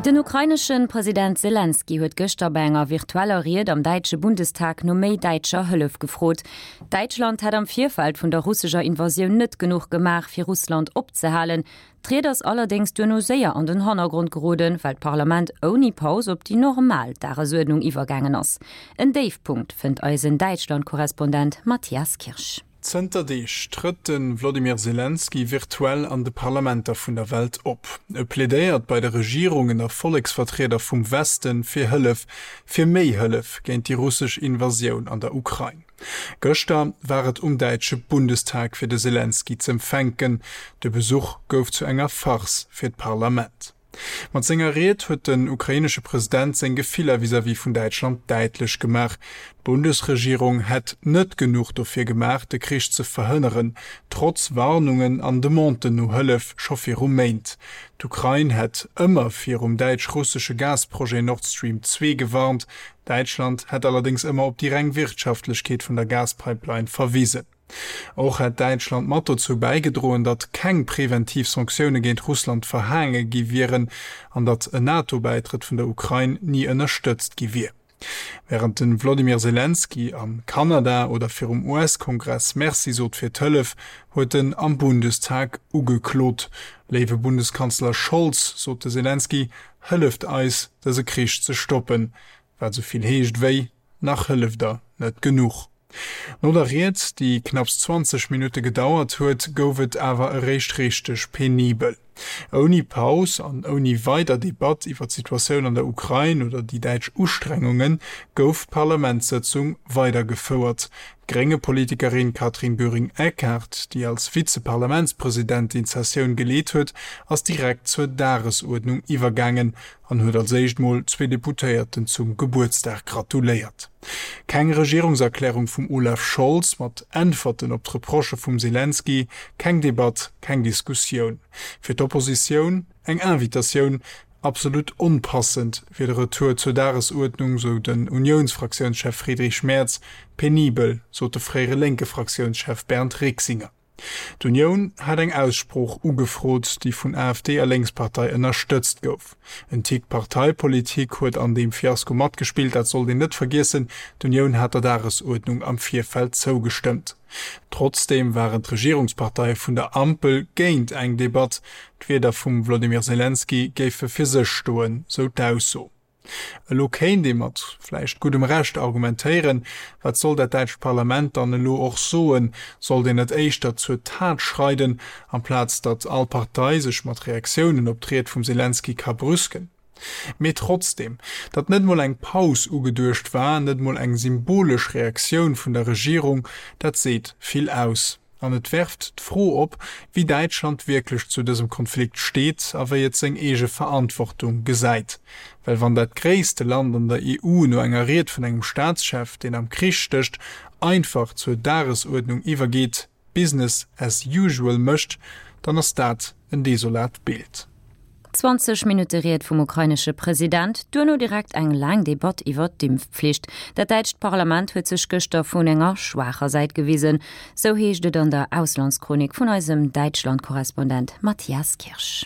Den ukrainesche President Selenskyj huet gëschter bei enger virtueller Ried am däitsche Bundestag no méi däitscher Hëllef gefrot. Däitschland hätt am Virfeld vun der russescher Invasioun net genuch gemaach, fir Russland opzehalen. D'Ried ass allerdéngs duerno séier an den Hannergrond geroden, well d'Parlament ouni Paus op déi normal Dagesuerdnung iwwergaangen ass. En Déifpunkt, fënnt eisen Däitschland-Korrespondent Matthias Kirsch. Zënter Deeg trëtt de Wlodimir Selenskyj virtuell an de Parlamenter vun der Welt op. E plädéiert bei de Regierungen a Volleksvertrieder vum Weste fir Hëllef, fir méi Hëllef géint déi russesch Invasioun an der Ukrain. Gëschter war et um däitsche Bundestag fir de Selenskyj z'empfänken. De Besuch gouf zu enger Farce fir d'Parlament. Mat senger Ried huet den ukrainesche President seng Gefiller vis-à-vis vun Däitschland däitlech gemaach. D'Bundesregierung hätt net genuch dofir gemaach, de Krich ze verhënneren, trotz Warnungen an Demanden no Hëllef scho viru Méint. D'Ukrain hätt ëmmer virum däitsch-russesche Gasprojet Nord Stream 2 gewarnt. Däitschland hätt allerdéngs ëmmer op déi reng Wirtschaftlechkeet vun der Gaspipeline verwisen. Och hätt Däitschland mat dozou bäigedroen, datt keng preventiv Sanktioune géint Russland verhaange gi wieren an datt en NATO-Bäitrëtt vun der Ukrain ni ënnerstëtzt gi wier. Wärend de Wlodimir Selenskyj a Kanada oder virum US-Kongress Merci sot fir d'Hëllef, huet en am Bundestag ugeklot. Léiwe Bundeskanzler Scholz, sot de Selenskyj, hëlleft eis, dëse Krich ze stoppen. Wat esou vill heescht wéi, Nach hëlleft der net genuch. No der Ried, déi knapps 20 Minutte gedauert huet, gouf et awer eréischt richteg penibel. Ouni Paus an ouni weider Debatt iwwer d'Situatioun an der Ukrain oder déi däitsch Ustrengungen, gouf d'Parlamentssëtzung weidergefouert. D'Grénge-Politikerin Katrin Göring-Eckardt, déi als Vize-Parlamentspresidentin d'Sessioun geleet huet, ass direkt zur Dagesuerdnung iwwergaangen an huet als éischt mol zwee Deputéierten zum Gebuertsdag gratuléiert. Keng Regierungserklärung vum Olaf Scholz mat Äntwerten op d'Reprochë vum Selenskyj, keng Debatt, keng Diskussioun. Fir d'Oppositioun eng Invitatioun, absolut onpassend wier de Retour zur Dagesuerdnung, sou den Uniounsfraktiounschef Friedrich Merz, penibel, sot de fréiere Lénke-Fraktiounschef Bernd Riexinger. D'Unioun hat eng Aussprooch ugefrot, déi vun AfD a Lénkspartei ënnerstëtzt gouf. En Tick Parteipolitik huet an deem Fiasko matgespillt, dat sollt een net vergiessen, d'Unioun hat der Dagesuerdnung am Virfeld zougestëmmt. Trotzdeem waren d'Regierungsparteie vun der Ampel géint eng Debatt. D'Wierder vum Wlodimir Selenskyj géife fir sech stoen, sou d'Ausso. Elo kéint ee mat vläicht guddem Recht argumentéieren, Wat soll dat däitscht Parlament dann elo och soen? Sollt een net éischter zur Tat schreiden, amplaz datt all Partei sech mat Reaktiounen op d'Ried vum Selenskyj ka brüsken? Mee trotzdeem, datt net mol eng Paus ugeduecht war, net mol eng symbolesch Reaktioun vun der Regierung, dat seet vill aus. An et werft d'Fro op, wéi Däitschland wierklech zu dësem Konflikt steet a wéi et seng eege Verantwortung gesäit. Well wann dat gréisste Land an der EU no enger Ried vun engem Staatschef, deen am Krich stécht, einfach zur Dagesuerdnung iwwergeet, Business as usual mécht, dann ass dat en desolat Bild. 20 Minutte Ried vum ukrainesche President, duerno direkt eng laang Debatt iwwer d'Impfpflicht. Dat däitscht Parlament huet sech gëschter vun enger schwaacher Säit gewisen, sou heescht et an der Auslandschronik vun eisem Däitschland-Korrespondent Matthias Kirsch.